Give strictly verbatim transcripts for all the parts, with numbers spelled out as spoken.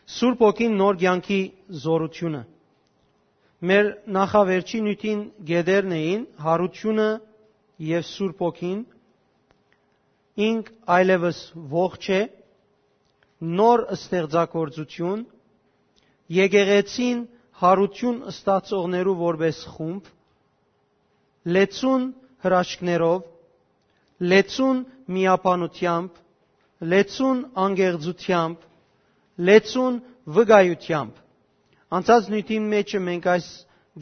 Սուրբ Հոգին նոր կեանքի զորութիւնը։ Մեր նախավերջին նիւթին գետերն էին Յարութիւնը եւ Սուրբ Հոգին, ինք այլեւս ողջ է, նոր ստեղծագործութիւն, եկեղեցին Յարութիւն ստացողներու որպէս խումբ, լեցուն հրաշքներով, լեցուն միաբանութեամբ, լեցուն անկեղծութեամբ, լեցուն վկայութեամբ։ Անցած նիւթին մէջը մենք այս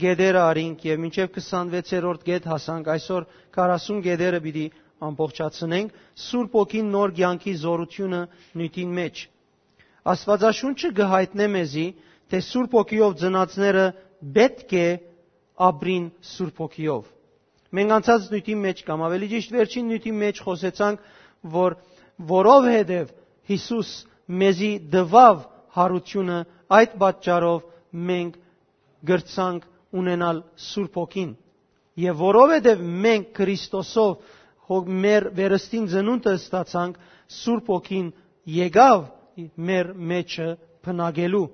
գետերը առինք եւ մինչեւ քսանվեցերորդ գետ հասանք, այսօր քառասուն գետերը պիտի ամբողջացնենք, Սուրբ Հոգին նոր կեանքի զորութիւնը նիւթին մէջ։ Աստուածաշունչը կը յայտնէ մեզի, թէ Սուրբ Հոգիով ծնածները պէտք է ապրին Սուրբ Հոգիով։ Մենք անցած նիւթին մէջ կամ ավելի ճիշտ վերջին նիւթին մէջ խօսեցանք, որ որովհետեւ Յիսուս մեզի տուաւ Յարութիւնը, այդ պատճառով մենք կրցանք ունենալ Սուրբ Հոգին։ Եւ որովհետեւ մենք Քրիստոսով հո-, մեր վերստին ծնունդը ստացանք, Սուրբ Հոգին եկաւ մեր մեջը բնակելու։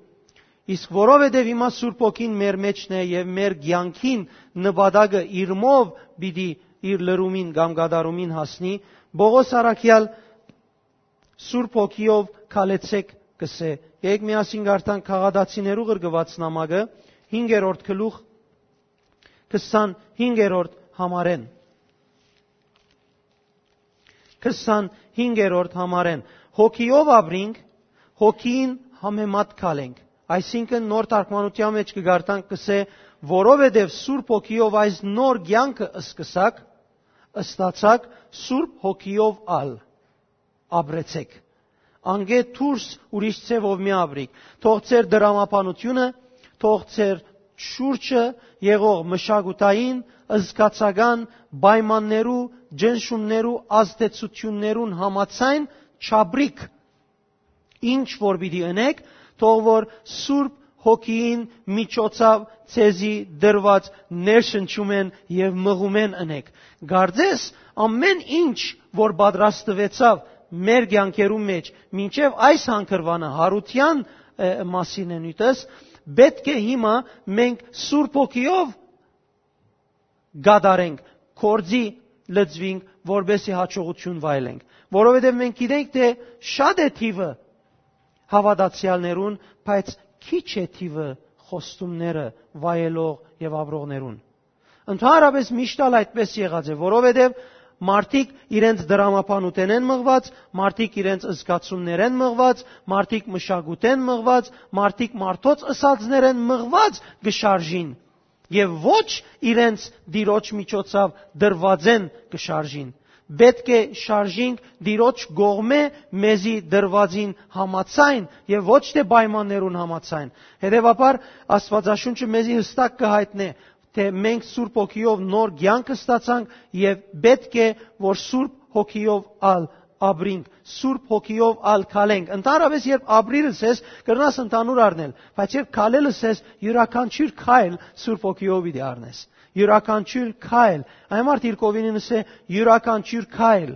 Իսկ որովհետեւ հիմա Սուրբ Հոգին մեր մեջն է եւ մեր կեանքին նպատակը իրմով պիտի իր լրումին կամ կատարումին հասնի, Պողոս առաքեալ Սուրբ Հոգիով քալեցեք կ'ըսէ։ Եկեք միասին կարդանք Գաղատացիներու ղրկուած նամակը, հինգերորդ գլուխ, քսանհինգերորդ համարէն։ Քսանհինգերորդ համարէն։ Հոգիով ապրինք, հոգին համեմատ քալենք։ Այսինքն նոր թարգմանութեան մէջ կը կարդանք, կ'ըսէ, որովհետեւ Սուրբ Հոգիով այս նոր կեանքը սկսաք, ստացաք, Սուրբ Հոգիով ալ ապրեցեք։ Անկէ դուրս ուրիշ ձեւով մի ապրիք։ Թող ձեր դրամաբանությունը, թող ձեր շուրջը եղող մշակութային, զգացական պայմաններու, ջնշումներու, ազդեցություններուն համաձայն չապրիք։ Ինչ որ պիտի ընեք, թող որ Սուրբ Հոգիին միջոցաւ ձեզի դրուած ներշնչումէն եւ մղումէն ընեք։ Կարծես ամէն ինչ որ պատրաստուեցաւ մեր կեանքերու մէջ, մինչեւ այս հանգրուանը, Յարութեան, ը, մասին է նիւթս, պէտք է հիմա մենք Սուրբ Հոգիով կատարենք, գործի լծուինք, որպեսզի հաջողութիւն վայելենք։ Որովհետեւ մենք գիտենք, թէ շատ է թիւը հաւատացեալներուն, բայց քիչ է թիւը խոստումները վայելող եւ ապրողներուն։ Ընդհանրապես միշտ ալ այդպես եղած է, որովհետեւ մարդիկ իրենց դրամաբանութենէն մղուած, մարդիկ իրենց զգացումներէն մղուած, մարդիկ մշակութէն մղուած, մարդիկ մարդոց ըսածներէն մղուած կը շարժին եւ ոչ իրենց Տիրոջ միջոցաւ դրուածէն կը շարժին։ Պէտք է շարժինք Տիրոջ կողմէ մեզի դրուածին համաձայն եւ ոչ թէ պայմաններուն համաձայն։ Հետեւաբար Աստուածաշունչը մեզի յստակ կը յայտնէ, թէ մենք Սուրբ Հոգիով նոր կեանք ստացանք եւ պէտք է որ Սուրբ Հոգիով ալ ապրինք, Սուրբ Հոգիով ալ քալենք։ Ընդհանրապես երբ ապրիր ըսես, կրնաս ընդհանուր առնել, բայց երբ քալել ըսես, իւրաքանչիւր քայլ Սուրբ Հոգիով պիտի առնես։ Իւրաքանչիւր քայլ, այն մարդ իր կովինին ըսէ, իւրաքանչիւր քայլ։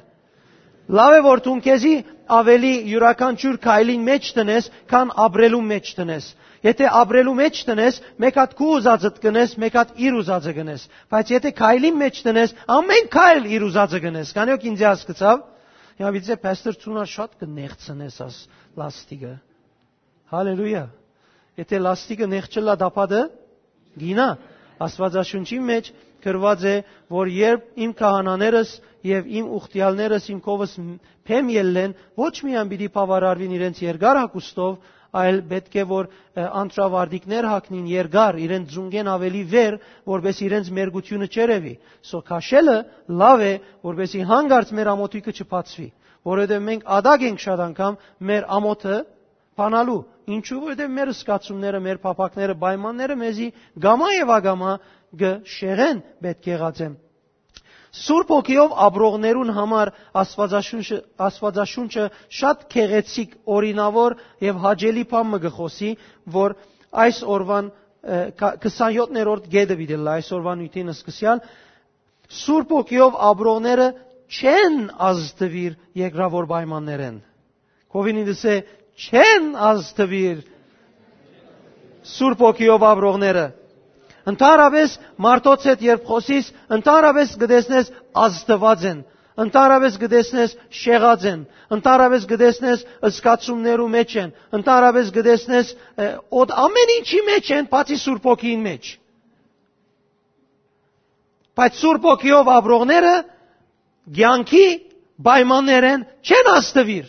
Լաւ է որ դուն քեզի ավելի իւրաքանչիւր քայլին մէջ տնես, քան ապրելու մէջ տնես։ Եթե ապրելու մէջ տնես, մէկ հատ քու ուզածդ կնես, մէկ հատ իր ուզածը կնես։ Բայց եթե քայլին մէջ տնես, ամէն քայլ իր ուզածը կնես։ Քանի՞ յոք ինձի հասկցաւ։ Հիմա պիտի ասէ, «Փաստոր, ցունա շատ կը նեղցնես աս լաստիկը»։ Հալելույա։ Եթե լաստիկը նեղջ ըլլայ, տապատը գինայ։ Աստուածաշունչին մէջ գրուած է, որ երբ իմ քահանաներս եւ իմ ուխտեալներս իմ փեմ ելլեն, ոչ միայն պիտի բաւարարուին իրենց երկար հագուստով, այլ պէտք է որ, ը, անտրավարտիքներ հագնին երկար, իրենց ծունկէն ավելի վեր, որպէս իրենց մերկութիւնը չերեւի։ Սո քաշելը լաւ է, որպեսզի հանկարծ մեր ամոթոյքը չբացուի, որովհետեւ մենք ատակ ենք շատ անգամ մեր ամոթը բանալու։ Ինչու՞, որովհետեւ մեր զգացումները, մեր փափաքները, պայմանները մեզի գամա եւ ագամա կը շեղեն, պէտք եղած է։ Սուրբ Հոգիով ապրողներուն համար Աստուածաշունչը, Աստուածաշունչը շատ գեղեցիկ, օրինաւոր եւ հաճելի բան մը կը խօսի, որ այս օրուան, ը, քա-, քսանյոթերորդ գետը պիտի ըլլայ այսօրվա նիւթին սկսեալ, Սուրբ Հոգիով ապրողները չեն ազդուիր երկրաւոր պայմաններէն։ Քովին ինձ է, չեն ազդուիր Սուրբ Հոգիով ապրողները։ Ընդհանրապես մարդոց հետ երբ խոսիս, ընդհանրապես կտեսնես ազդուած են, ընդհանրապես կտեսնես շեղած են, ընդհանրապես կտեսնես զգացումներու մեջ են, ընդհանրապես կտեսնես, ը, օդ ամեն ինչի մեջ են, բացի Սուրբ Հոգին մեջ։ Բայց Սուրբ Հոգիով ապրողները կեանքի պայմաններէն չեն ազդուիր։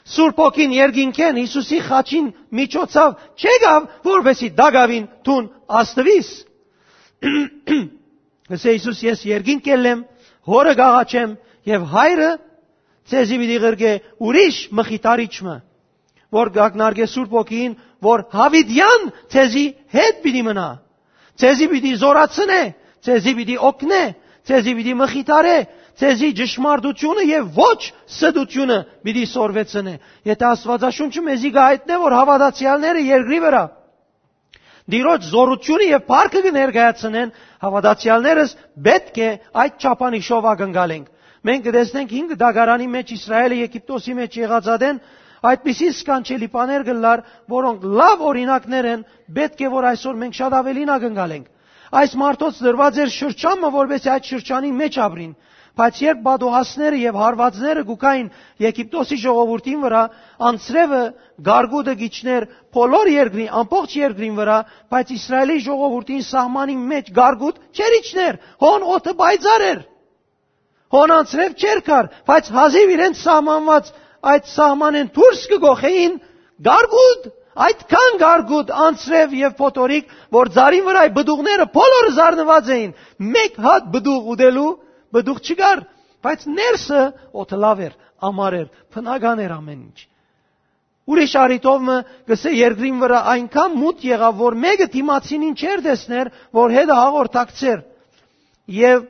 Սուրբ Հոգին երկինքէն Յիսուսի խաչին միջոցով չեկաւ, որպեսզի տակաւին դուն ազդուիս։ Ըսէ Յիսուս. «Ես երկինք կ'ելլեմ, Հօրը կ'աղաչեմ եւ Հայրը ձեզի պիտի ղրկէ ուրիշ մխիթարիչ մը, որ կ'ակնարկէ Սուրբ Հոգին, որ յաւիտեան ձեզի հետ պիտի մնայ, ձեզի պիտի զօրացնէ, ձեզի պիտի օգնէ, ձեզի պիտի մխիթարէ, ձեզի ճշմարտութիւնը եւ ոչ ստութիւնը պիտի սորվեցնէ»։ Եթէ Աստուածաշունչը մեզի կ'այտնէ, որ հաւատացեալները երկրի վրայ Տիրոջ զօրութիւնը եւ փառքը կը ներկայացնեն, հաւատացեալներս պէտք է այդ չափանիշով ակնկալենք։ Մենք կը տեսնենք հինգ դագարանի մեջ Իսրայէլը Եգիպտոսի մեջ եղած ատեն այդպիսի սքանչելի բաներ կ'ըլլար, որոնք լաւ օրինակներ են, պէտք է որ այսօր մենք շատ աւելին ակնկալենք։ Այս մարդոց դրուած էր շրջան մը, որպեսզի այդ շրջանի մեջ ապրին, բայց երբ պատուհասները եւ հարվածները կու գային Եգիպտոսի ժողովուրդին վրայ, անձրեւը, գարգուտը կ'իջնէր բոլոր երկրին, ամբողջ երկրին վրայ, բայց Իսրայէլի ժողովուրդին սահմանին մեջ գարգուտ չէր իջներ, հոն օդը պայծառ էր, հոն անձրեւ չէր գար, բայց հազիւ իրենց սահմանուած այդ սահմանէն դուրս կը գոխեին գարգուտ, այդքան գարգուտ, անձրեւ եւ փոթորիկ, որ ծառին վրայ պտուղները բոլորը զարնուած էին, մեկ հատ պտուղ ուտելու պտուղ չկար, բայց ներսը օդը լաւ էր, ամառ էր, բնական էր ամեն ինչ։ Ուրիշ առիթով մը կ'ըսէ, երկրին վրայ այնքան մութ եղաւ, որ մէկը դիմացինին չէր տեսներ, որ հետը հաղորդակցէր։ Եւ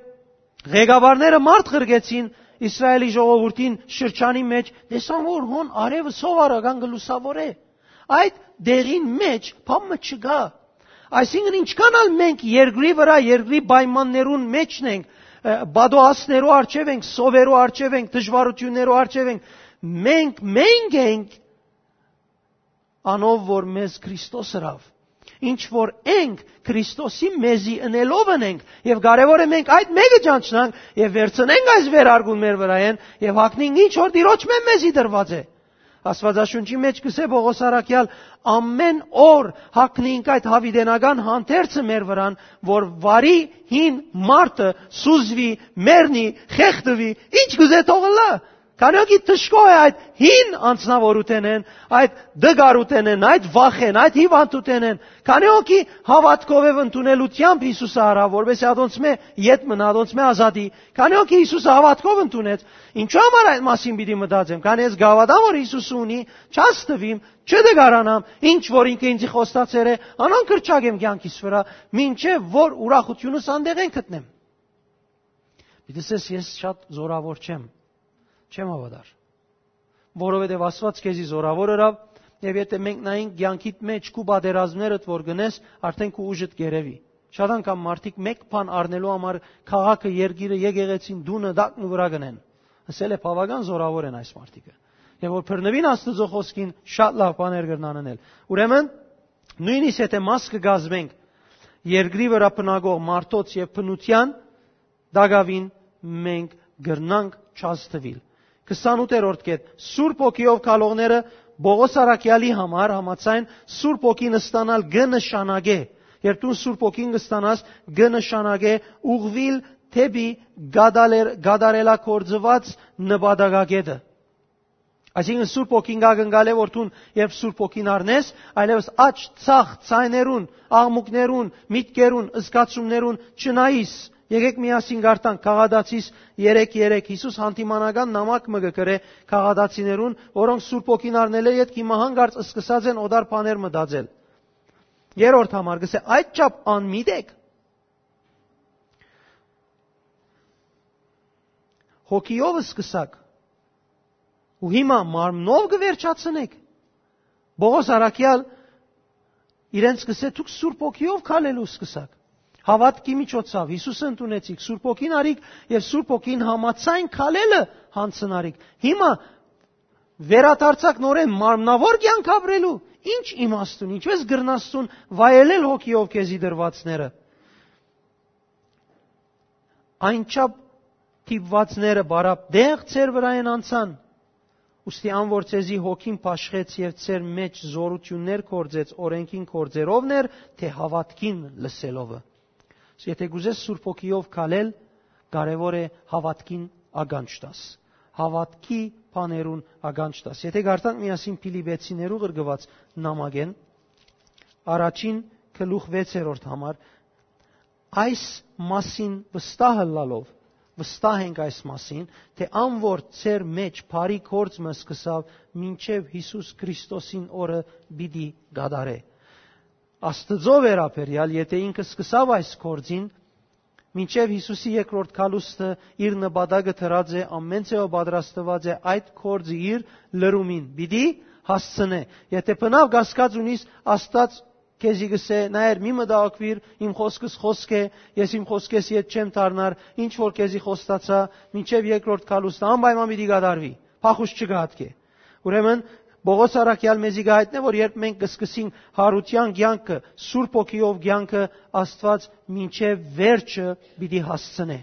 ղեկավարները մարդ ղրկեցին Իսրայէլի ժողովուրդին շրջանի մեջ, տեսան, որ հոն արեւը սովորական կը լուսաւորէ։ Այդ դեղին մեջ բան մը չկայ։ Այսինքն, ինչքան ալ մենք երկրի վրայ, երկրի պայմաններուն մեջ ենք, ը, պատուհասներու առջեւ ենք, սովերու առջեւ ենք, դժվարութիւններու առջեւ ենք, մենք, մենք ենք անով, որ մեզ Քրիստոս ըրաւ։ Ինչ որ ենք, Քրիստոսի մեզի ընելով ընենք, եւ կարեւոր է մենք այդ մէկը ճանչնանք եւ վերցնենք այս վերարկուն մեր վրայէն եւ հագնենք ինչ որ Տիրոջմէ մեզի տրուած է։ Աստուածաշունչի մեջ կ'ըսէ Պողոս առաքեալ. «Ամեն օր հագնենք այդ յաւիտենական հանդերձը մեր վրան, որ վարի հին մարդը սուզուի, մեռնի, խեղդուի, ինչ կ'ուզէ թող ըլլայ»։ Քանի՞ հոգի դժգոհ է այդ հին անձնաւորութենէն, այդ դգարութենէն, այդ վախէն, այդ հիվանդութենէն։ Քանի՞ հոգի հաւատքով եւ ընդունելութեամբ Յիսուսը առաւ, որպեսզի ատոնցմէ ետ մնայ, ատոնցմէ ազատի։ Քանի՞ հոգի Յիսուսը հաւատքով ընդունեց։ Ինչո՞ւ համար այդ մասին պիտի մտածեմ, քանի ես գաւադամ որ Յիսուսը ունի, չաստուիմ, չդգարանամ, ինչ որ ինքը ինձի խոստացեր է, անան կրճակեմ կեանքիս վրայ, մինչեւ որ ուրախությունս անդեղեն գտնեմ։ Պիտի ասես, ես շատ զորավոր չեմ, չեմ հաւատար, որովհետեւ Աստուած քեզի զորավոր ըրաւ, եւ եթէ մենք նայենք կեանքիդ մեջ քու պատերազմներդ որ գնես, արդեն քու ուժդ կ'երեւի։ Շատ անգամ մարդիկ մէկ բան առնելու համար քաղաքը, երկիրը, եկեղեցին, տունը տակն ու վրայ գնեն։ Ասել է, բաւական զորավոր են այս մարդիկը։ Եւ որ բռնուին Աստուծոյ խօսքին, շատ լաւ բաներ կրնան անել։ Ուրեմն, նոյնիսկ եթէ մաս կը կազմենք երկրի վրայ բնակող մարդոց եւ բնութեան, տակաւին մենք կրնանք չազդուիլ։ Քսանութերորդ կետ. Սուրբ Հոգիով քալողները Պողոս առաքեալի համար համաձայն Սուրբ Հոգին ստանալ կը նշանակէ, երբ դուն Սուրբ Հոգին կստանաս, կը նշանակէ ուղղուիլ դէպի կատարել-, կատարելագործուած նպատակակետը։ Այսինքն, Սուրբ Հոգին կ'ակնկալէ, որ դուն, երբ Սուրբ Հոգին առնես, այլեւս աջ, ցախ, ձայներուն, աղմուկներուն, միտքերուն, զգացումներուն չնայիս։ Եկեք միասին կարդանք Գաղատացիս երեք երեք։ Յիսուս հանդիմանական նամակ մը կը գրէ գաղատացիներուն, որոնք Սուրբ Հոգին առնելէ ետք հիմա հանկարծ սկսած են օտար բաներ մտածել։ Երրորդ համար կ'ըսէ. «Այդ չափ անմիտ եք։ Հոգիով սկսաք ու հիմա մարմնով կը վերջացնեք»։ Պողոս առաքեալ իրենց կ'ըսէ. «Դուք Սուրբ Հոգիով քալելու սկսաք։ Հաւատքի միջոցով Յիսուսը ընդունեցիք, Սուրբ Հոգին առիք եւ Սուրբ Հոգին համաձայն քալելը յանցնարիք։ Հիմա վերադարձաք նորէն մարմնաւոր կեանք ապրելու, Ի՞նչ իմաստուն, ինչպե՞ս կրնաս դուն վայելել հոգիով քեզի դրուածները։ Այնչափ դիպուածները բարապ դեղ ձեր վրայէն անցան, ուստի ան որ ձեզի հոգին բաշխեց եւ ձեր մէջ զօրութիւններ գործեց օրէնքին գործերովն էր, թէ հաւատքին լսելովը։ Եթէ կ'ուզես Սուրբ Հոգիով քալել, կարեւոր է հաւատքին ականջ տաս, հաւատքի բաներուն ականջ տաս։ Եթէ կարդանք միասին Փիլիպեցիներու ղրկուած նամակէն, առաջին գլուխ վեցերորդ համար, այս մասին վստահ ըլլալով, վստահ ենք այս մասին, թէ ան որ ձեր մէջ բարի գործ մը սկսաւ, մինչեւ Յիսուս Քրիստոսին օրը պիտի կատարէ։ Աստուծոյ վերաբերեալ, եթէ ինքը սկսաւ այս գործին, մինչեւ Յիսուսի երկրորդ գալուստը իր նպատակը դրած է, ամէն ձեւով պատրաստուած է այդ գործը իր լրումին պիտի հասցնէ։ Եթէ բնաւ կասկած ունիս, Աստուած քեզի կ'ըսէ. «Նայեր, մի մտահոգուիր, իմ խօսքս խօսք է, ես իմ խօսքէս ետ չեմ դառնար, ինչ որ քեզի խոստացայ, մինչեւ երկրորդ գալուստը անպայման պիտի կատարուի, փախուստ չկայ ատկէ»։ Ուրեմն, Պողոս առաքեալ մեզի կը յայտնէ, որ երբ մենք կ'սկսենք յարութեան կեանքը, Սուրբ Հոգիով կեանքը, Աստուած մինչեւ վերջը պիտի հասցնէ։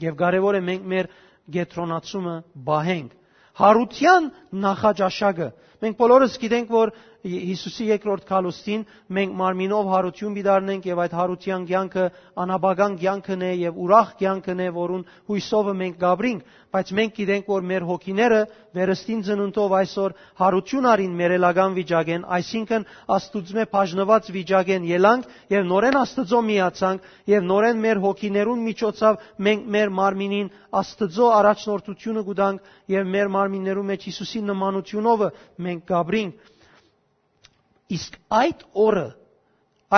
Եւ կարեւոր է մենք մեր կեդրոնացումը պահենք։ Յարութեան նախաճաշակը։ Մենք բոլորս գիտենք, որ Յիսուսի երկրորդ գալուստին մենք մարմինով յարութիւն պիտի առնենք եւ այդ յարութեան կեանքը անաբական կեանքն է եւ ուրախ կեանքն է, որուն յուսովը մենք կ'ապրինք, բայց մենք գիտենք, որ մեր հոգիները վերստին ծնունդով այսօր յարութիւն առին մեռելական վիճակէն, այսինքն Աստուծմէ բաժնուած վիճակէն ելանք եւ նորէն Աստուծոյ միացանք եւ նորէն մեր հոգիներուն միջոցով մենք մեր մարմինին Աստուծոյ առաջնորդութիւնը կու տանք եւ մեր մարմիններու մէջ Յիսուսի նմանութիւնովը մենք կ'ապրինք։ Իսկ այդ օրը,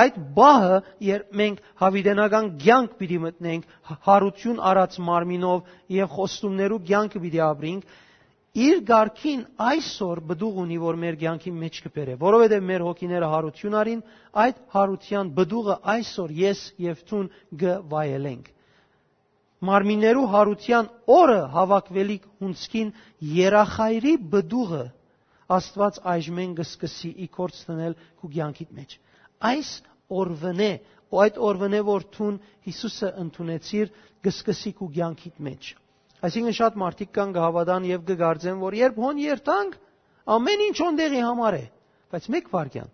այդ պահը, երբ մենք յաւիտենական կեանք պիտի մտնենք, յ-, յարութիւն առած մարմինով եւ խոստումներու կեանքը պիտի ապրենք, իր կարգին այսօր պտուղ ունի, որ մեր կեանքի մէջ կը բերէ, որովհետեւ մեր հոգիները յարութիւն առին, այդ յարութեան պտուղը այսօր ես եւ դուն կը վայելենք։ Մարմիններու յարութեան օրը հաւաքուելիք հունձքին երախայրի պտուղը Աստուած այժմէն կը սկսի ի գործ դնել քու կեանքիդ մէջ։ Այս օրվնէ, ու այդ օրվնէ որ դուն Յիսուսը ընդունեցիր, կը սկսի քու կեանքիդ մէջ։ Այսինքն շատ մարդիկ կան կը հաւատան եւ կը կարծեն, որ երբ հոն երթանք, ամէն ինչ հոն տեղի համար է, բայց մէկ վայրկեան,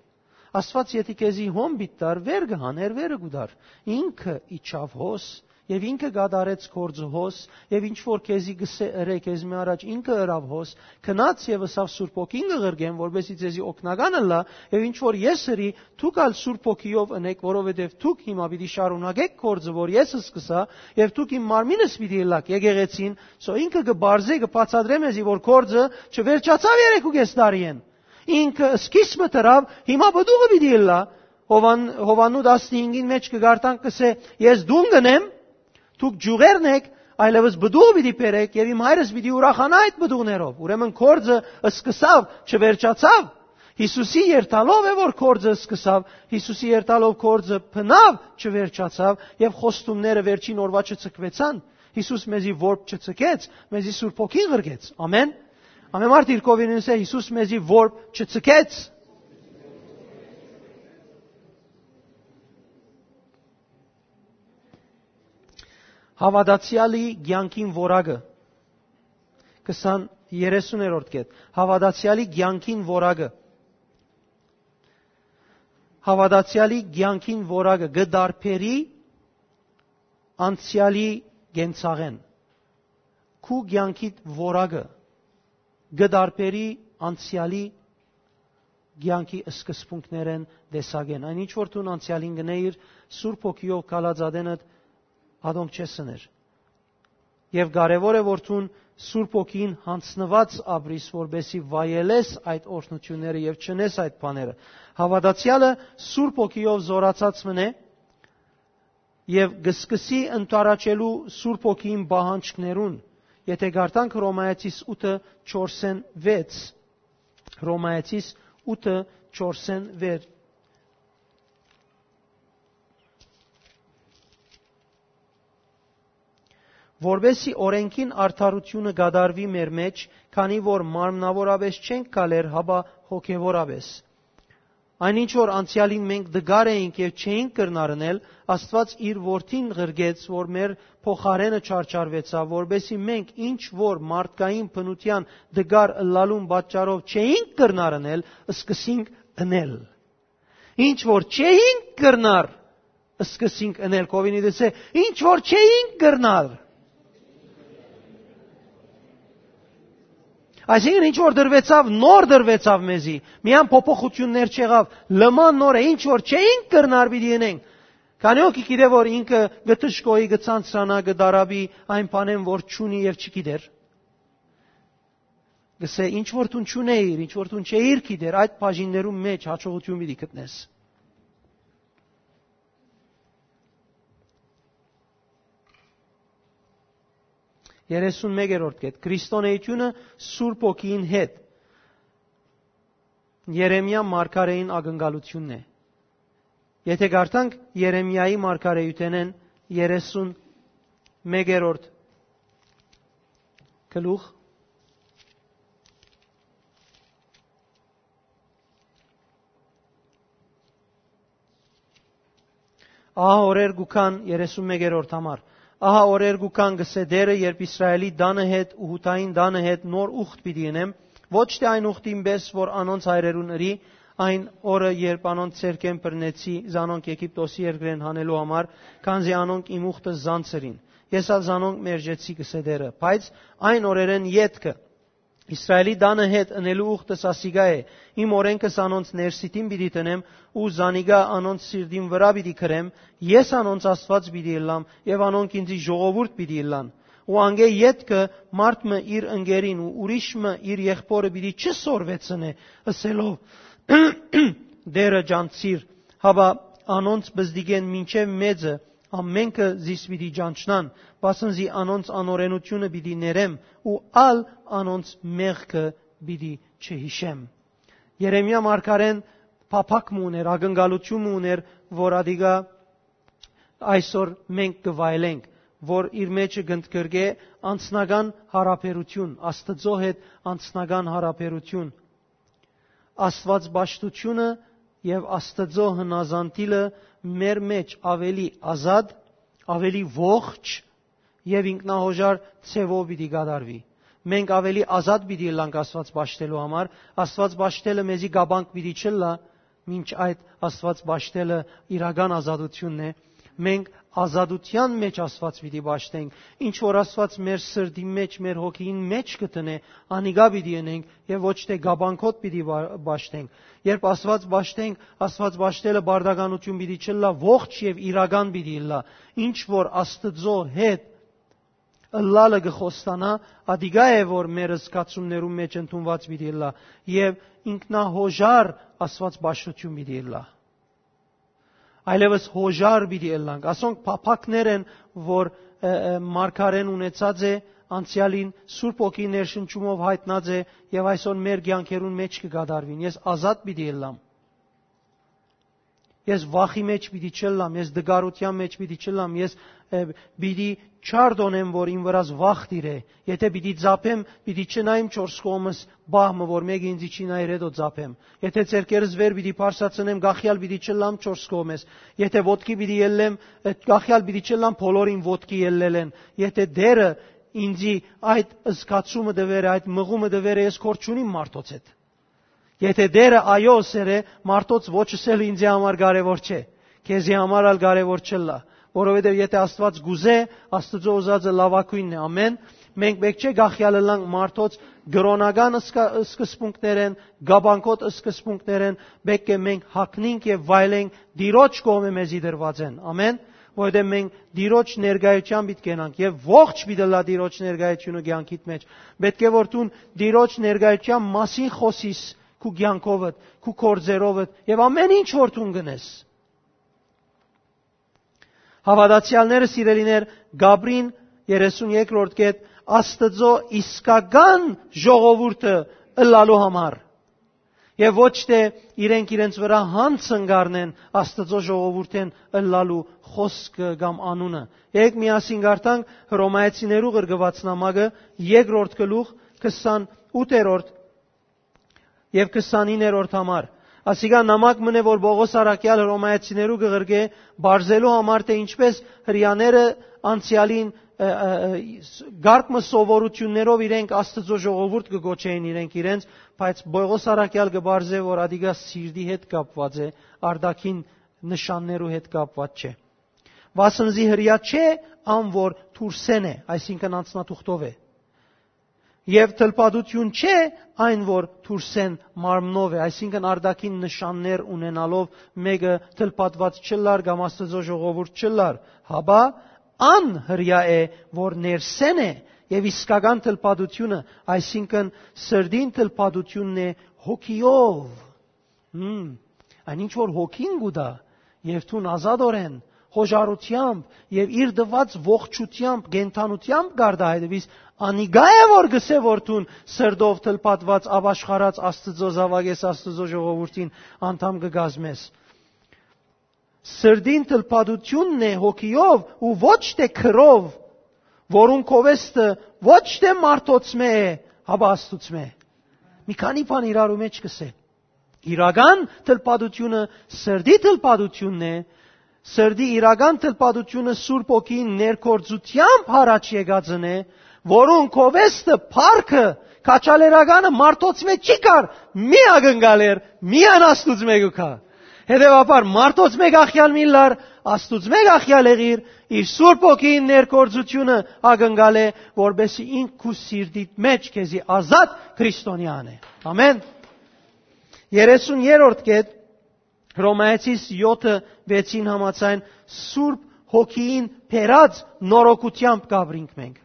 Աստուած եթի քեզի հոն պիտի տար, վեր կը հաներ, վերը կու տար։ Ինքը իջաւ հոս, եւ ինքը կատարեց գործը հոս, եւ ինչ որ քեզի կ'ըսէ ըրէ քեզմէ առաջ, ինքը ըրաւ հոս, գնաց եւ ըսաւ Սուրբ Հոգին կը ղրկեմ, որպեսզի ձեզի օգնական ըլլայ, եւ ինչ որ ես ըրի, դուք ալ Սուրբ Հոգիով ընէք, որովհետեւ դուք հիմա պիտի շարունակէք գործը, որ ես սկսայ, եւ դուք իմ մարմինս պիտի ըլլաք, եկեղեցին, սո ինքը կը բարձէ, կը բացատրէ մեզի, որ գործը չվերջացաւ երեկ ու կես տարիէն։ Ինքը սկիզբը դրաւ, հիմա պտուղը պիտի ըլլայ։ Յովան-, Յովհաննու տասնհինգին մէջ կը կարդանք, կ'ըսէ. «Ես դուն կ'ընեմ, դուք ջուղերն էք, այլեւս պտուղ պիտի բերէք եւ իմ հայրս պիտի ուրախանայ այդ պտուղներով»։ Ուրեմն գործը սկսաւ, չվերջացաւ։ Յիսուսի երթալով է, որ գործը սկսաւ, Յիսուսի երթալով գործը բնաւ չվերջացաւ եւ խոստումները վերջին օրուայ չցկուեցան։ Յիսուս մեզի որբ չցկեց, մեզի Սուրբ Հոգին ղրկեց։ Ամեն։ Ամեն մարդ իր կողմէն ըսէ. «Յիսուս մեզի որբ չցկեց»։ Հաւատացեալի կեանքին որակը։ Քսան, երեսուներորդ կետ։ Հաւատացեալի կեանքին որակը։ Հաւատացեալի կեանքին որակը կը տարբերի անցեալի կենցաղէն։ Քու կեանքիդ որակը կը տարբերի անցեալի կեանքի սկզբունքներէն, տեսակէն։ Այն ինչ որ դուն անցեալին կ'ընէիր, Սուրբ Հոգիով քալած ատենդ ատոնք չես ըներ։ Եւ կարեւոր է որ դուն Սուրբ Հոգին յանձնուած ապրիս, որպեսզի վայելես այդ օրհնութիւնները եւ չընես այդ բաները։ Հաւատացեալը Սուրբ Հոգիով զօրացած մըն է, եւ կը սկսի ընդառաջելու Սուրբ Հոգին պահանջքներուն, եթէ կարդանք Հռոմայեցիս ութը չորսէն վեց, Հռոմայեցիս ութը չորսէն վեց։ որպեսզի օրէնքին արդարութիւնը կատարուի մեր մէջ, քանի որ մարմնաւորապէս չենք գալեր, հապա հոգեւորապէս։ Այն ինչ որ անցեալին մենք դգար էինք եւ չէինք կրնար ընել, Աստուած իր որդին ղրկեց, որ մեր փոխարէնը չարչարուեցաւ, որպեսզի մենք ինչ որ մարդկային բնութեան դգար ըլլալուն պատճառով չէինք կրնար ընել, սկսենք ընել։ Ինչ որ չէինք կրնար, սկսենք ընել։ Կովինի դեսե, ինչ որ չէինք կրնար։ Այսինքն ինչ որ դրվեցաւ, նոր դրվեցաւ մեզի։ Միան փոփոխություններ չեղաւ, լման նոր է, ինչ որ չէինք կրնար պիտի ընենք։ Քանի՞ օքի գիտե որ ինքը գտշկոյի գցանցրանա, կդարաբի այն բանեն որ չունի եւ չգիտեր։ Գսե, ինչ որ դուն չունեիր, ինչ որ դուն չէիր գիտեր, այդ բաժիններուն մէջ հաջողություն պիտի գտնես։ Երեսուն մեկերորդ կետ, Քրիստոնեությունը Սուրբ Հոգին հետ Երեմիա մարգարեին ակնկալությունն է։ Եթե կարդանք Երեմիայի մարգարեութենէն երեսուն մեկերորդ գլուխ, ահա օրեր կու գան, երեսուն մեկերորդ համար, ահա օրեր կու գան, գսե Տէրը, երբ Իսրայէլի տանը հետ ու Յուդային տանը հետ նոր ուխտ պիտի ընեմ, ոչ թէ այն ուխտին պէս, որ անոնց հայրերուն ըրի, այն օրը, երբ անոնց ձեռքէն բռնեցի զանոնք Եգիպտոսի երկրէն հանելու համար, քանզի անոնք իմ ուխտը զանցրին։ Ես ալ զանոնք մերժեցի, գսե Տէրը, բայց այն օրերէն ետքը, Իսրայէլի տանը հետ ընելու ուխտս ասիկա է, իմ օրէնքս անոնց ներսիտին պիտի դնեմ ու զանիկա անոնց սիրտին վրայ պիտի գրեմ, ես անոնց Աստուած պիտի ըլլամ եւ անոնք ինծի ժողովուրդ պիտի ըլլան։ Ու անկէ ետքը մարդ մը իր ընկերին ու ուրիշ մը իր եղբօրը պիտի չսորվեցնէ, ըսելով. «Տէրը ճանչցիր», հապա անոնց բզդիկէն մինչեւ մեծը ամէնքը զիս պիտի ճանչնան, վասն զի անոնց անօրէնությունը պիտի ներեմ ու ալ անոնց մեղքը պիտի չհիշեմ։ Երեմիա մարգարեն փափաք մը ունէր, ակնկալություն մը ունէր, որ ադիգա այսօր մենք կը վայելենք, որ իր մեջը կընդգրկէ անձնական յարաբերութիւն, Աստուծոյ հետ անձնական յարաբերութիւն, Աստուածպաշտութիւնը եւ Աստուծոյ հնազանդիլը մեր մէջ աւելի ազատ, աւելի ողջ եւ ինքնահոժար ձեւով պիտի կատարուի։ Մենք աւելի ազատ պիտի ըլլանք Աստուած պաշտելու համար, Աստուած պաշտելը մեզի կապանք պիտի չըլլայ, մինչ այդ Աստուած պաշտելը իրական ազատութիւնն է։ Մենք ազատութեան մէջ Աստուած պիտի պաշտենք։ Ինչ որ Աստուած մեր սրտին մէջ, մեր հոգիին մէջ կը դնէ, անիկա պիտի ընենք եւ ոչ թէ կապանքոտ պիտի պա-, պաշտենք։ Երբ Աստուած պաշտենք, Աստուած պաշտելը պարտականութիւն պիտի չըլլայ, ողջ եւ իրական պիտի ըլլայ։ Ինչ որ Աստուծոյ հետ ըլլալը կը խոստանայ, ադիկա է որ մեր զգացումներուն մէջ ընդունուած պիտի ըլլայ եւ ինքնահոժար Աստուած պաշտութիւն պիտի ըլլայ։ Այլեւս հոժար պիտի ըլլանք։ Ասոնք փափաքներ են, որ, ը, ը, մարգարեն ունեցած է անցեալին, Սուրբ Հոգի ներշնչումով յայտնած է եւ այսօր մեր կեանքերուն մէջ կը կատարուին։ Ես ազատ պիտի ըլլամ։ Ես վախի մէջ պիտի չըլլամ, ես դգարութեան մէջ պիտի չըլլամ, ես, ը, պիտի չարդոնեմ, որ իմ վրաս վախ տիրէ։ Եթե պիտի ծափեմ, պիտի չնայեմ չորս կողմս պահ մը, որ մէկը ինձի չի նայեր, հետո ծափեմ։ Եթե ձեռքերս վեր պիտի բարձրացնեմ, գախյալ պիտի չըլլամ չորս կողմես։ Եթե ոտքի պիտի ելլեմ, այդ գախյալ պիտի չըլլամ բոլորին ոտքի ելլելէն։ Եթե Տէրը ինձի այդ զգացումը տուեր է, այդ մղումը տուեր է, ես կոր չունիմ մարդոց հետ։ Եթե Տէրը այո ըսեր է, մարդոց ոչ ըսել ինձի համար կարեւոր չէ, քեզի համար ալ կարեւոր չըլլայ, որովհետեւ եթե Աստուած կուզէ, Աստուծոյ ուզածը լաւագոյնն է, ամէն։ Մենք պէտք չէ գախյալ ըլլանք մարդոց կրօնական սկա-, սկզբունքներէն, կապանքոտ սկզբունքներէն, պէտք է մենք հագնենք եւ վայելենք Տիրոջ կողմէ մեզի դրուածէն, ամէն, որովհետեւ մենք Տիրոջ ներկայութեան պիտի կենանք եւ ողջ պիտի ըլլայ Տիրոջ ներկայութիւնը կեանքիդ մէջ։ Պէտք է որ դուն Տիրոջ ներկայութեան մասին խօսիս քու կեանքովդ, քու գործերովդ եւ ամէն ինչ որ դուն կ'ընես։ Հաւատացեալները, սիրելիներ, կ'ապրին երեսուն երկրորդ կետ Աստուծոյ իսկական ժողովուրդը ըլլալու համար։ Եւ ոչ թէ իրենք իրենց վրայ յանձն կ'առնեն Աստուծոյ ժողովուրդէն ըլլալու խօսքը կամ անունը։ Եկեք միասին կարդանք Հռոմայեցիներու ղրկուած նամակը, երկրորդ գլուխ, քսանութերորդ եւ քսանիններորդ համար։ Ասիկա նամակ մըն է, որ Պողոս առաքեալ Հռոմայեցիներու կը ղրկէ, բարձելու համար, թէ ինչպէս հրեաները անցեալին, ը, ը, ը, կարգ մը սովորութիւններով իրենք Աստուծոյ ժողովուրդ կը կոչէին իրենք իրենց, բայց Պողոս առաքեալ կը բարձէ, որ ադիկա սիրտի հետ կապուած է, արտաքին նշաններու հետ կապուած չէ։ Վասն զի հրեայ չէ ան, որ դուրսէն է, այսինքն անձնաթուղթով է։ Եւ թլփատութիւն չէ այն, որ դուրսէն մարմնով է, այսինքն արտաքին նշաններ ունենալով մէկը թլփատուած չըլլար կամ Աստուծոյ ժողովուրդ չըլլար, հապա ան հրեայ է, որ ներսէն է, եւ իսկական թլփատութիւնը, այսինքն սրտին թլփատութիւնն է հոգիով։ Հմ, այն ինչ որ հոգին կու տայ, եւ դուն ազատօրէն, խոժարութեամբ եւ իր տուած ողջութեամբ, կենդանութեամբ կ'արտայայտես, դեվիս անիկա է, որ կ'ըսէ, որ դուն սրտով թլփատուած, ապաշխարած Աստուծոյ զաւակ ես, Աստուծոյ ժողովուրդին անդամ կը կազմես։ Սրտին թլփատութիւնն է հոգիով ու ոչ թէ քրով, որուն կովեստը ոչ թէ մարդոցմէ է, հապա Աստուծմէ։ Մի քանի բան իրարու մէջ կ'ըսէ։ Իրական թլփատութիւնը սրտի թլփատութիւնն է, սրտի իրական թլփատութիւնը Սուրբ Հոգին ներգործութեամբ յառաջ եկածն է, որուն կովեստը, փառքը, քաջալերականը մարդոցմէ չի գար, միակնկալ էր, միայն Աստուծմէ կու գայ։ Հետեւաբար, մարդոցմէ կախեալ միլլար, Աստուծմէ կախեալ եղիր, իր Սուրբ Հոգին ներգործութիւնը ակնկալ է, որպեսզի ինք քու սիրտիդ մէջ քեզի ազատ քրիստոնեան է։ Ամեն։ Երեսուն երրորդ կետ, Հռոմայեցիս յոթը վեցին համաձայն, Սուրբ Հոգին բերած նորոգութեամբ կ'ապրինք մենք։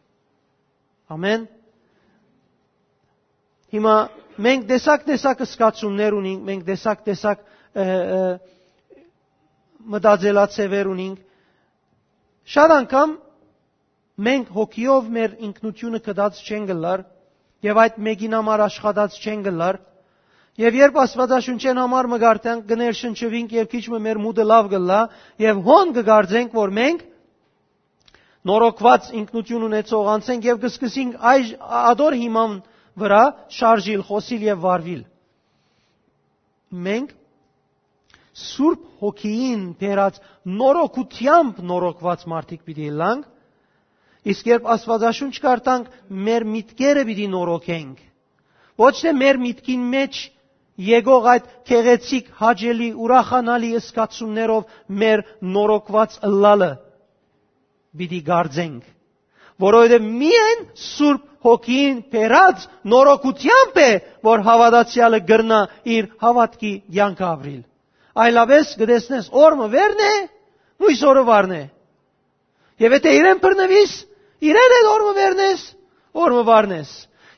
Ամեն։ Հիմա մենք տեսակ-տեսակ զգացումներ ունենք, մենք տեսակ-տեսակ, ը, ը, մտածելաձևեր ունենք։ Շատ անգամ մենք հոգիով մեր ինքնությունը գտած չենք ըլլար եւ այդ մեկին համար աշխատած չենք ըլլար։ Եւ երբ Աստուածաշունչէն համար մը կարդանք, կը ներշնչուինք եւ քիչ մը մեր մուտը լաւ կ'ըլլայ եւ հոն կը կարծենք, որ մենք նորոգուած ինքնություն ունեցող անձ ենք եւ կը սկսենք այժ ատոր հիման վրայ շարժիլ, խօսիլ եւ վարուիլ։ Մենք Սուրբ Հոգիին բերած նորոգութեամբ նորոգուած մարդիկ պիտի ըլլանք, իսկ երբ Աստուածաշունչ կարդանք, մեր միտքերը պիտի նորոգենք։ Ոչ թէ մեր միտքին մէջ եկող այդ գեղեցիկ, հաճելի, ուրախանալի զգացումներով մեր նորոգուած ըլլալը պիտի կարծենք, որովհետեւ միայն Սուրբ Հոգին բերած նորոգութեամբ է, որ հաւատացեալը կրնայ իր հաւատքի կեանքը ապրիլ։ Այլապէս կը տեսնես, օր մը վեր է, մոյս օրը վար է։ Եւ եթէ իրեն բռնուիս, իրեն հետ օր մը վեր ես, օր մը վար ես։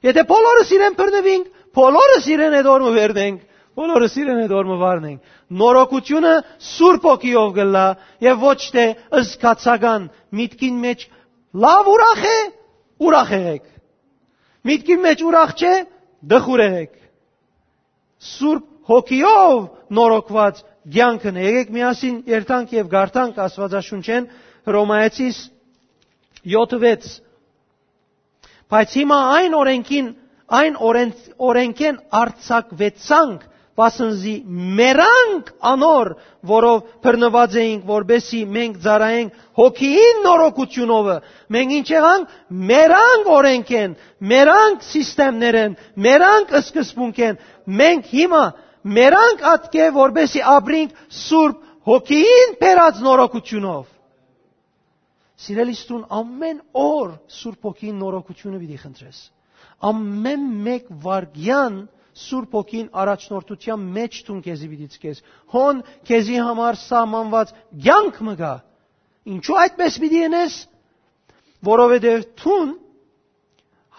Եթէ բոլորս իրեն բռնուինք, բոլորս իրեն հետ օր մը վեր ենք, բոլորս իրեն հետ օր մը վար ենք։ Նորոգութիւնը Սուրբ Հոգիով կ'ըլլայ եւ ոչ թէ զգացական, միտքին մէջ լաւ ուրախ է, ուրախ եղեք։ Միտքին մէջ ուրախ չէ, տխուր եղեք։ Սուրբ Հոգիով նորոգուած կեանքն է։ Եկեք միասին երթանք եւ կարդանք Աստուածաշունչէն, Հռոմայեցիս յոթը վեց։ Բայց հիմա այն օրենքին, այն օրեն-, օրենքէն արձակուեցանք, վասն զի մեռանք անոր, որով բռնուած էինք, որպեսզի մենք ծառայենք Հոգիին նորոգութիւնովը։ Մենք ինչ եղանք? Մեռանք օրենքէն, մեռանք սիստեմներէն, մեռանք սկզբունքէն։ Մենք հիմա մեռանք ատկէ, որպեսզի ապրինք Սուրբ Հոգիին բերած նորոգութիւնով։ Սիրելիս, դուն ամեն օր Սուրբ Հոգին նորոգութիւնը պիտի խնդրես։ Ամեն մէկ վայրկեան Սուրբ Հոգին առաջնորդութեան մէջ դուն քեզի պիտի ցկես։ Հոն քեզի համար սահմանուած կեանք մը կայ։ Ինչու այդպես պիտի ընես? Որովհետեւ դուն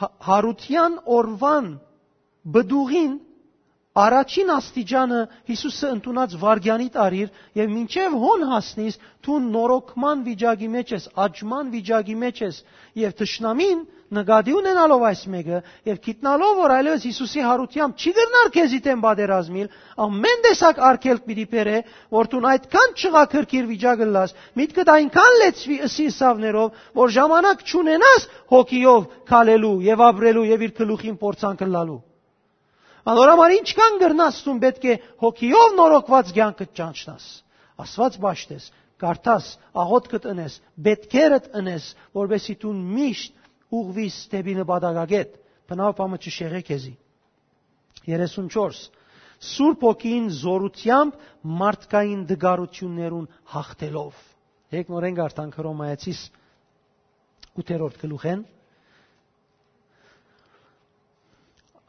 հա-, յարութեան օրուան պտուղին առաջին աստիճանը Յիսուսը ընդունած վայրկեանիդ առիր եւ մինչեւ հոն հասնիս, դու նորոգման վիճակի մեջ ես, աճման վիճակի մեջ ես, եւ թշնամին նկատի ունենալով այս մեկը եւ գիտնալով, որ այլեւս Յիսուսի յարութեամբ չի կրնար քեզի դէմ պատերազմիլ, ամեն տեսակ արգելք պիտի բերէ, որ դուն այդքան չղաքրքիր վիճակ ըլլաս, միտքդ այնքան լեցուի ըսի ըսաւներով, որ ժամանակ չունենաս հոգիով քալելու եւ ապրելու եւ իր գլուխին փորձանք ըլլալու։ Անոր համար ինչքան կրնաս դուն պէտք է հոգիով նորոգուած կեանքը ճանչնաս։ Աստուած պաշտես, կարդաս, աղօթքդ ընես, պէտքերդ ընես, որպեսզի դուն միշտ ուղղվիս դէպի նպատակագէտ, բնաւ բամը չշեղէ քեզի։ Երեսուն չորս։ Սուրբ Հոգին զորութեամբ մարդկային դգարութիւններուն հաղթելով։ Եկնորեն կարդանք Հռոմայեցիս ութերորդ գլուխէն։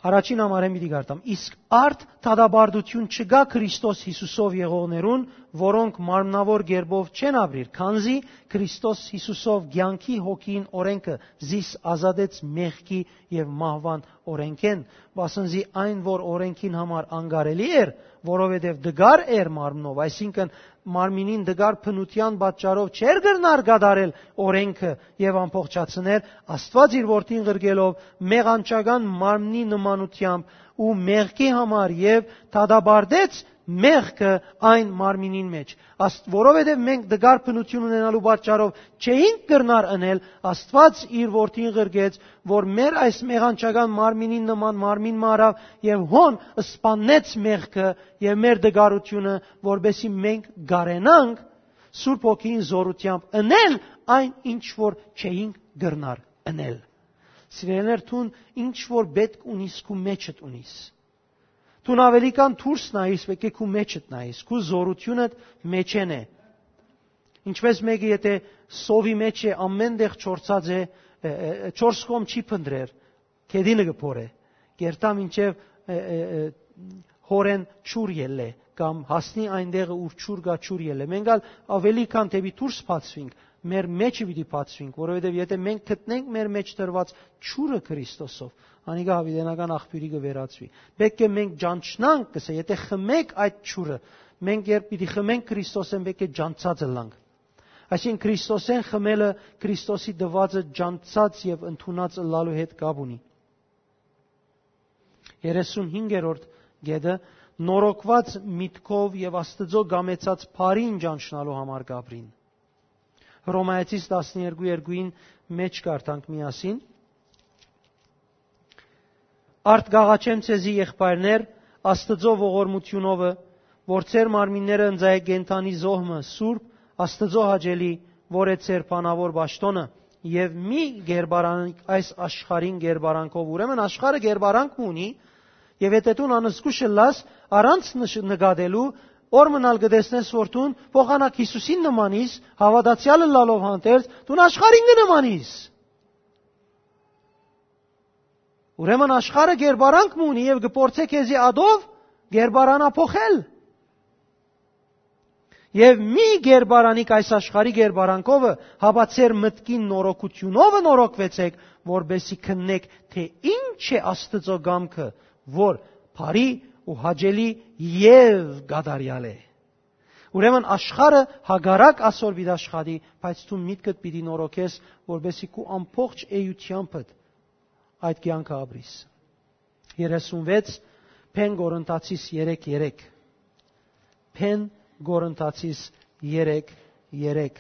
Առաջին համարէն պիտի կարդամ։ Իսկ արդ դատապարտութիւն չկայ Քրիստոս Յիսուսով եղողներուն, որոնք մարմնաւոր կերպով չեն ապրիր, քանզի Քրիստոս Յիսուսով կեանքի հոգին օրէնքը զիս ազատեց մեղքի եւ մահուան օրէնքէն, վասն զի այն, որ օրէնքին համար անկարելի էր, որովհետեւ դգար էր մարմնով, այսինքն՝ մարմինին դգար բնութեան պատճառով չէր կրնար կատարել օրէնքը եւ ամբողջացնել, Աստուած իր որդին ղրկելով մեղանչական մարմնի նմանութեամբ ու մեղքի համար եւ դատապարտեց մեղքը այն մարմինին մեջ։ Աստ-, որովհետեւ մենք դգար բնութիւն ունենալու պատճառով չէինք կրնար ընել, Աստուած իր որդին ղրկեց, որ մեր այս մեղանչական մարմինին նման մարմին մը առաւ եւ հոն սպաննեց մեղքը եւ մեր դգարութիւնը, որպեսզի մենք կարենանք Սուրբ Հոգին զորութեամբ ընել այն, ինչ որ չէինք կրնար ընել։ Սիրելիներ, դուն ինչ որ պէտք ունիս, քու մեջդ ունիս։ Դուն աւելի քան դուրս նայիս, պէտք է քու մեջդ նայիս, քու զորութիւնդ մեջէն է։ Ինչպես մէկը, եթե սովի մեջ է, ամեն տեղ չորցած է, ը, ը, ը, չորս կողմ չի փնտրեր, գետինը կը փորէ, կերթայ մինչեւ, ը, ը, ը, հորեն ջուր ելլէ, կամ հասնի այն տեղը, ուր ջուր կայ, ջուր ելլէ։ Մենք ալ աւելի քան դէպի դուրս բացուինք, մեր մեջը պիտի բացուինք, որովհետեւ եթե մենք գտնենք մեր մեջ դրուած ջուրը Քրիստոսով, անիկա յաւիտենական աղբիւրի կը վերածուի։ Պէտք է մենք ճանչնանք, կ'ըսէ, եթե խմենք այդ ջուրը, մենք երբ պիտի խմենք Քրիստոսէն, պէտք է ճանչցած ըլլանք։ Այսինքն՝ Քրիստոսէն խմելը Քրիստոսի տուածը ճանչցած եւ ընդունած ըլլալու հետ կապ ունի։ Երեսունհինգերորդ կետը նորոգուած միտքով եւ Աստուծոյ կամեցած բարին ճանչնալու համար կապրին։ Հռոմայեցիս տասներկու երկուին մէջ կարդանք միասին. «Արդ կ'աղաչեմ ձեզի, եղբայրներ, Աստուծոյ ողորմութիւնովը, որ ձեր մարմինները ընծայէք կենդանի զոհ մը, սուրբ, Աստուծոյ հաճելի, որ է ձեր բանաւոր պաշտօնը, եւ մի կերպարանք այս աշխարհին կերպարանքով»։ Ուրեմն աշխարհը կերպարանք մը ունի, եւ եթե դուն անզգուշ ըլլաս, առանց նշ-, նկատելու, օր մնալ կը տեսնես, որ դուն փոխանակ Յիսուսին նմանիս, հաւատացեալ ըլլալով հանդերձ, դուն աշխարհին կը նմանիս։ Ուրեմն աշխարհը կերպարանք մը ունի եւ կը փորձէ քեզի ադով կերպարանափոխել։ Եւ մի կերպարանիք այս աշխարհի կերպարանքովը, հապա ձեր մտքին նորոգութիւնովը նորոգուեցէք, որպեսզի քննեք, թէ ինչ է Աստուծոյ կամքը, որ բարի ու հաճելի եւ կատարեալ է։ Ուրեմն աշխարհը հակառակ ասոր պիտի աշխատի, բայց դու միտքդ պիտի նորոգես, որպեսզի քու ամբողջ էութեամբդ այդ կեանքը ապրիս։ Երեսունվեց, Փեն Կորինթացիս երեք երեք։ Փեն Կորինթացիս երեք երեք։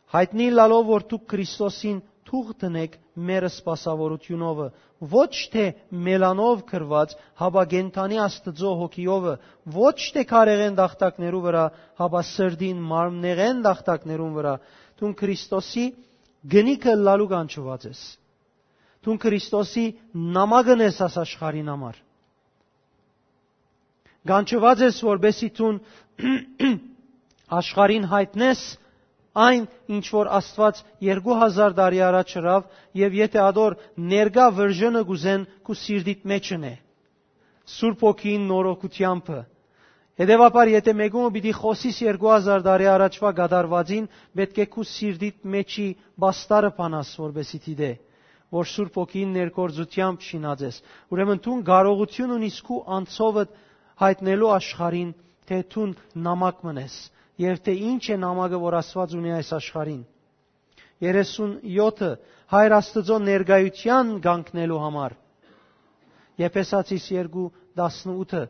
Յայտնի ըլլալով, որ դուք Քրիստոսին թուղթ դնէք մեր սպասաւորութիւնովը, ոչ թէ մելանով գրուած, հապա կենդանի Աստուծոյ հոգիովը, ոչ թէ քարեղէն տախտակներու վրայ, հապա սրտին մարմնեղէն տախտակներուն վրայ, դուն Քրիստոսի գնիքը ըլլալու կանչուած ես։ Դուն Քրիստոսի նամակն ես աս աշխարհին համար։ Կանչուած ես, որպեսզի դուն աշխարհին յայտնես այն, ինչ որ Աստուած երկու հազար տարի առաջ ըրաւ, եւ եթե ադոր ներկայ վրժնը կ'ուզեն, քու սիրտիդ մեջն է, Սուրբ Հոգին նորոգութեամբը։ Հետեւաբար, եթե մէկումը պիտի խօսիս երկու հազար տարի առաջուա կատարուածին, պէտք է քու սիրտիդ մեջի պաստարը բանաս, որպեսզի դիտէ, որ Սուրբ Հոգին ներգործութեամբ շինած ես։ Ուրեմն դուն կարողութիւն ունիս քու անցովդ յայտնելու աշխարհին, թէ դուն նամակ մըն ես, եւ թէ ինչ է նամակը, որ Աստուած ունի այս աշխարհին։ Երեսուն եօթը, Հայր Աստուծոյ ներկայութեան կանգնելու համար։ Եփեսացիս երկու տասնութը,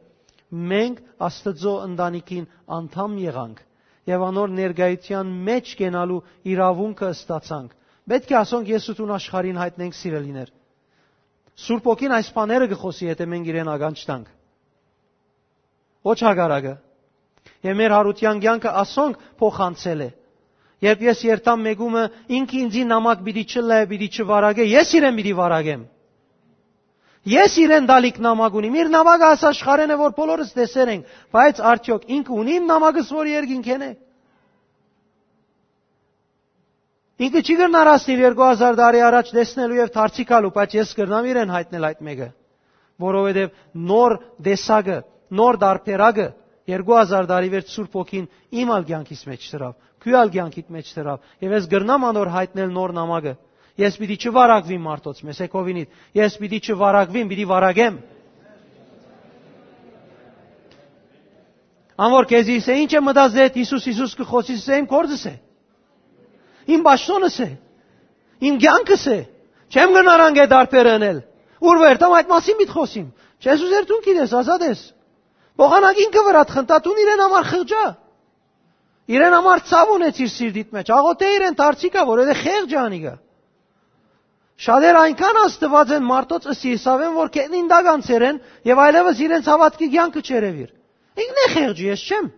մենք Աստուծոյ ընտանիքին անդամ եղանք եւ անոր ներկայութեան մէջ կենալու իրաւունքը ստացանք։ Պէտք է ասոնք ես ու դուն աշխարհին յայտնենք, սիրելիներ։ Սուրբ Հոգին այս բաները կը խօսի, եթե մենք իրեն ականջ տանք։ Ոչ հակառակը։ Եւ մեր յարութեան կեանքը ասոնք փոխանցել է։ Երբ ես երթամ մեկումը, ինքը ինձի նամակ պիտի չլայ, պիտի չվարագէ, ես իրեն պիտի վարագեմ։ Ես իրեն դալիք նամակ ունիմ։ Իր նամակը աս աշխարհեն է, որ բոլորս տեսեր ենք, բայց արդյոք ինքը ունի իմ նամակս, որ երկինքէն է։ Ինքը չի կրնար հասնիլ երկու հազար տարի առաջ տեսնելու եւ դարձի գալու, բայց ես կրնամ իրեն յայտնել այդ մէկը, որովհետեւ նոր տեսակը, նոր դարբերակը երկու հազար տարի վերջ Սուրբ Հոգին իմ ալ կեանքիս մեջ դրաւ, քու ալ կեանքիդ մեջ դրաւ, եւ ես կրնամ անոր յայտնել նոր նամակը։ Ես պիտի չվարակվիմ մարդոց, մեսեքովինիդ, ես պիտի չվարակվիմ, պիտի վարակեմ։ Ան որ քեզի ըսէ, «Ինչ է մտածել, Յիսուս, Յիսուս կը խօսիս», ըսէ, «Իմ գործս է, իմ պաշտոնս է, իմ կեանքս է, չեմ գնար անգէ դարբեր ընել»։ Ուր որ երթամ, այդ մասին պիտի խօսիմ։ Չես ուզեր, դուն գիտես, ազատ ես։ Փոխանակ ինքը վրադ խնդա, դուն իրեն համար խղճա, իրեն համար ցաւ ունեցիր սիրտիդ մեջ, աղոթե իրեն, դարձի գա, որովհետեւ խեղճ է անիկա։ Շատեր այնքան ազդուած են մարդոց ըսի Իսավեն, որ կետնին տակ անցեր են եւ այլեւս իրենց հաւատքի կեանքը չերեւիր։ Ինքն է խեղճը, ես չեմ։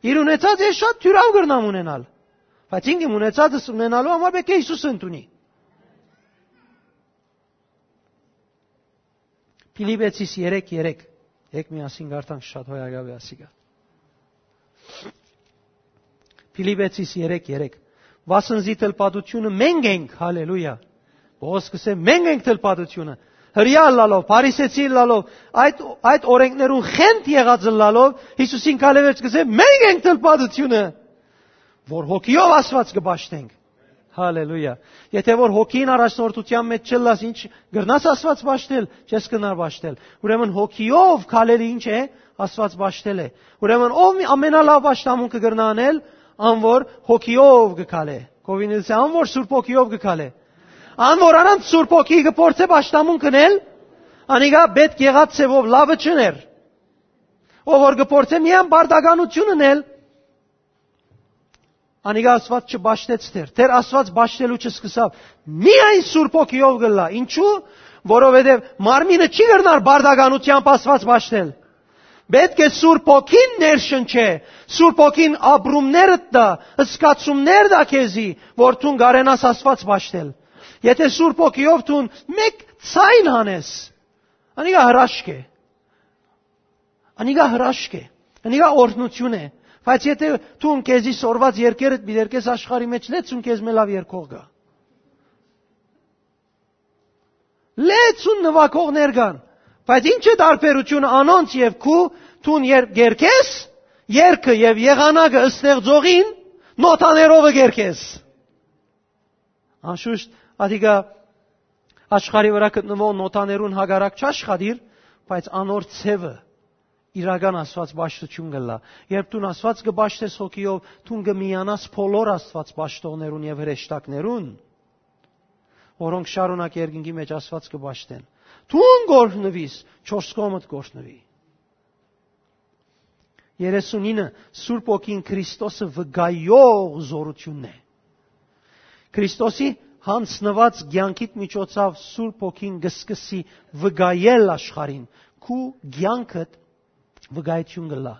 Իր ունեցած ես շատ թիւրաւ կրնամ ունենալ, բայց ինքն իմ ունեցածս ունենալու համար պէտք է Յիսուս ընդունի։ Փիլիպեցիս երեք երեք։ Եկ միասին կարդանք, շատ հոյակապ է ասիկա։ Փիլիպեցիս երեք երեք։ Վասն զի թլպատութիւնը մենք ենք, հալելույա։ Պողոս կսէ, մենք ենք թլպատութիւնը։ Հրեա ըլլալով, փարիսեցի ըլլալով, այդ, այդ օրենքներուն խենթ եղած ըլլալով, Յիսուսին քալեվերջ կսէ, մենք ենք թլպատութիւնը, որ հոգիով Աստուած կը պաշտենք։ Հալելույա։ Եթե որ հոգին առաջնորդութեան մեջ չըլլաս, ինչ կրնաս Աստուած պաշտել, չես կրնար պաշտել։ Ուրեմն հոգիով քալելը ինչ է, Աստուած պաշտել է։ Ուրեմն ով մի ամենալաւ պաշտամունքը կրնա անել, ան որ հոգիով կը քալէ։ Կովինիլսը, ան որ Սուրբ Հոգիով կը քալէ։ Ան որ առանց Սուրբ Հոգի կը փորձէ պաշտամունք ընել, անիկա պետք եղած ձևով լավը չներ։ Ով որ կը փորձէ միայն բարդականություն ընել, անիկա Աստուած չպաշտեց դեռ, դեռ Աստուած պաշտելու չսկսաւ։ Միայն Սուրբ Հոգիով կ'ըլլայ։ Ինչու՞։ Որովհետեւ մարմինը չի կրնար բարդականութեամբ Աստուած պաշտել։ Պէտք է Սուրբ Հոգին ներշնչէ, Սուրբ Հոգին ապրումներդ տայ, զգացումներ տայ քեզի, որ դուն կարենաս Աստուած պաշտել։ Եթե Սուրբ Հոգիով դուն մէկ ձայն հանես, անիկա հրաշք է։ Անիկա հրաշք է, անիկա օրհնութիւն է, բայց եթե դուն քեզի սորված երկերդ մի դերկես աշխարհի մեջ, լեցուն քեզ մը լաւ երկող գայ։ Լեցուն նվագողներ կան, բայց ի՞նչ է տարբերությունը անոնց եւ քու, դուն երբ կերկես, երկը եւ եղանակը ստեղծողին նոթաներովը կերկես։ Անշուշտ, ադիկա աշխարհի վրա գտնվող նոթաներուն հակառակ չաշխատիր, բայց անոր ձևը իրական Աստուած պաշտութիւն կ'ըլլայ։ Երբ դուն Աստուած կը պաշտես հոգիով, դուն կը միանաս բոլոր Աստուած պաշտողներուն եւ հրեշտակներուն, որոնք շարունակ երկնքի մեջ Աստուած կը պաշտեն։ Դուն կ'օրհնուիս, չորս կողմդ կ'օրհնուի։ Երեսունինը, Սուրբ Հոգին Քրիստոսը վկայող զորութիւնն է։ Քրիստոսի յանձնուած կեանքիդ միջոցաւ Սուրբ Հոգին կը սկսի վկայել աշխարհին, քու կեանքդ վկայութիւն կ'ըլլայ։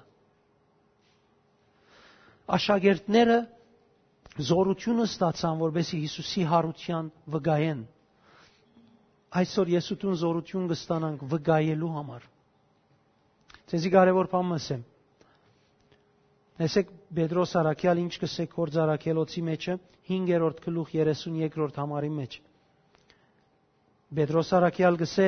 Աշակերտները զորութիւնը ստացան, որպեսզի Յիսուսի յարութեան վկայեն։ Այսօր ես ու դուն զորութիւն կ'ստանանք վկայելու համար։ Ձեզի կարեւոր բան մը ըսեմ։ Տեսեք, Պետրոս առաքեալ ինչ կ'ըսէ Գործ Առաքելոցի մեջը, հինգերորդ գլուխ, երեսուն երկրորդ համարի մեջ։ Պետրոս առաքեալ կ'ըսէ.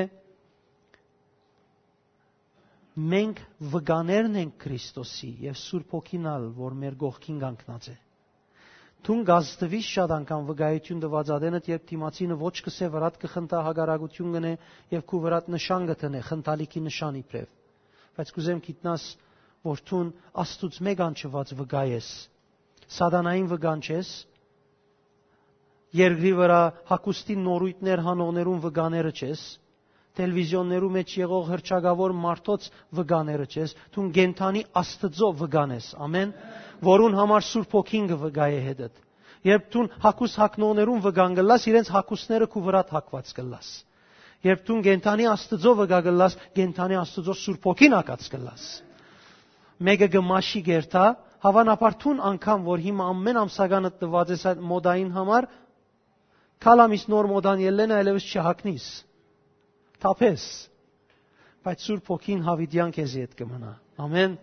«Մենք վկաներն ենք Քրիստոսի եւ Սուրբ Հոգին ալ, որ մեր կողքին կանգնած է»։ Դուն կ'ազդուիս շատ անգամ վկայութիւն տուած ատենդ, երբ դիմացինը ոչ կ'ըսէ, վրադ կը խնդայ, հակառակութիւն կ'ընէ եւ քու վրադ նշան կը դնէ, խնդալիքի նշան իբրեւ։ Բայց կ'ուզեմ գիտնաս, որ դուն Աստուծմէ կանչուած վկայ ես։ Սատանային վկանչ ես, երկրի վրայ հագուստին նորույթներ հանողներուն վկաները չես, տելեվիզիոններու մէջ եղող հռչակաւոր մարդոց վկաները չես, դուն կենդանի Աստուծոյ վկան ես, ամէն, որուն համար Սուրբ Հոգին կը վկայէ հետդ։ Երբ դուն հագուստ հագնողներուն վկան կ'ըլլաս, իրենց հագուստները քու վրադ հագուած կ'ըլլաս։ Երբ դուն կենդանի Աստուծոյ վկա կ'ըլլաս, կենդանի Աստուծոյ Սուրբ Հոգին հագած կ'ըլլաս։ Մէկը կը մաշի կ'երթայ, հաւանաբար դուն անգամ, որ հիմա ամէն ամսականը տուած ես այդ մոդային համար, քալամիս նոր մոդան ելլեն, այլեւս չհագնիս, թափես։ Բայց Սուրբ Հոգին յաւիտեան քեզի հետ կը մնայ։ Ամէն։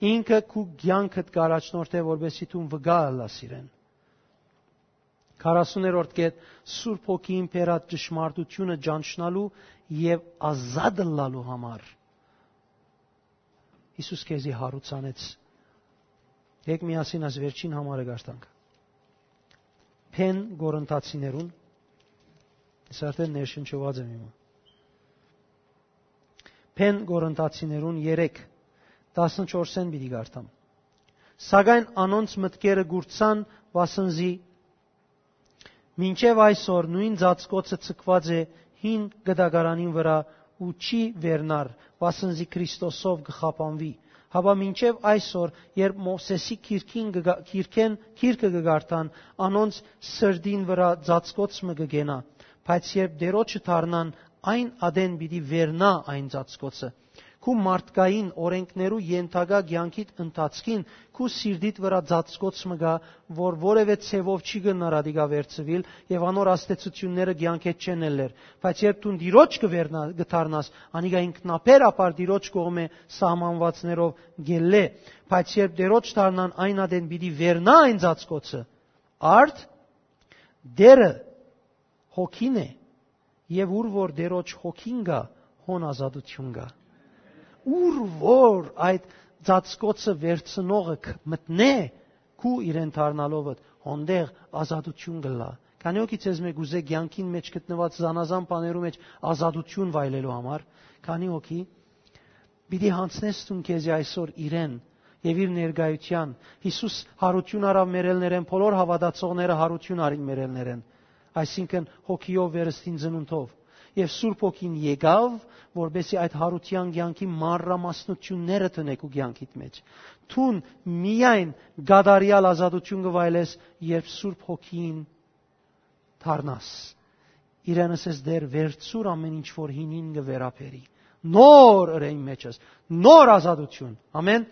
Ինքը քու կեանքդ կ'առաջնորդէ, որպեսզի դուն վկայ ըլլաս իրեն։ Քառասուներորդ կետ, Սուրբ Հոգին բերած ճշմարտութիւնը ճանչնալու եւ ազատ ըլլալու համար Յիսուս քեզի յարուցանեց։ Եկ միասին այս վերջին համարը կարդանք։ Բեն Կորինթացիներուն, ես արդեն ներշնչուած եմ հիմա։ Բեն Կորինթացիներուն երեք, տասնչորսէն պիտի կարդամ։ Սակայն անոնց մտքերը կուրցան, վասն զի մինչեւ այսօր նոյն ծածկոցը ձգուած է հին կտակարանին վրայ ու չի վերնար, վասն զի Քրիստոսով կը խափանուի։ Հապա մինչեւ այսօր, երբ Մովսէսի գիրքին կը գա-, գիրքեն, գիրքը կը կարդան, անոնց սրտին վրայ ծածկոց մը կը կենայ, բայց երբ Տէրոջը դառնան, այն ատեն պիտի վերնայ այն ծածկոցը։ Քու մարդկային օրէնքներու ենթակայ կեանքիդ ընթացքին քու սիրտիդ վրայ ծածկոց մը կայ, որ որեւէ ձեւով չի կրնար ատիկա վերցուիլ եւ անոր ազդեցութիւնները կեանքէդ չեն ելլեր։ Բայց երբ դուն Տիրոջ կը վերնա-, կը դառնաս, անիկա ինքնաբեր ապար Տիրոջ կողմէ սահմանուածներով կ'ելլէ։ Բայց երբ Տէրոջ դառնան, այն ատեն պիտի վերնայ այն ծածկոցը։ Արդ, Տէրը հոգին է, եւ ուր որ Տէրոջ հոգին կայ, հոն ազատութիւն կայ։ Ուր որ այդ ծածկոցը վերցնողը ք-, մտնէ, քու իրեն դառնալովդ, հոնդեղ ազատութիւն կ'ըլլայ։ Քանի՞ հոգի ձեզմէ կ'ուզէ կեանքին մէջ գտնուած զանազան բաներու մէջ ազատութիւն վայելելու համար, քանի՞ հոգի պիտի յանձնես դուն քեզի այսօր իրեն եւ իր ներկայութեան։ Յիսուս յարութիւն առաւ մեռելներէն, բոլոր հաւատացողները յարութիւն առին մեռելներէն, այսինքն՝ հոգիով, վերստին ծնունդով։ Եւ Սուրբ Հոգին եկաւ, որպեսզի այդ յարութեան կեանքի մանրամասնութիւնները դնէ քու կեանքիդ մէջ։ Դուն միայն կատարեալ ազատութիւն կը վայելես, երբ Սուրբ Հոգին դառնաս։ Իրեն ըսես. «Տէր, վերցուր ամէն ինչ որ հինին կը վերաբերի։ Նոր ըրէ իմ մէջս, նոր ազատութիւն»։ Ամէն։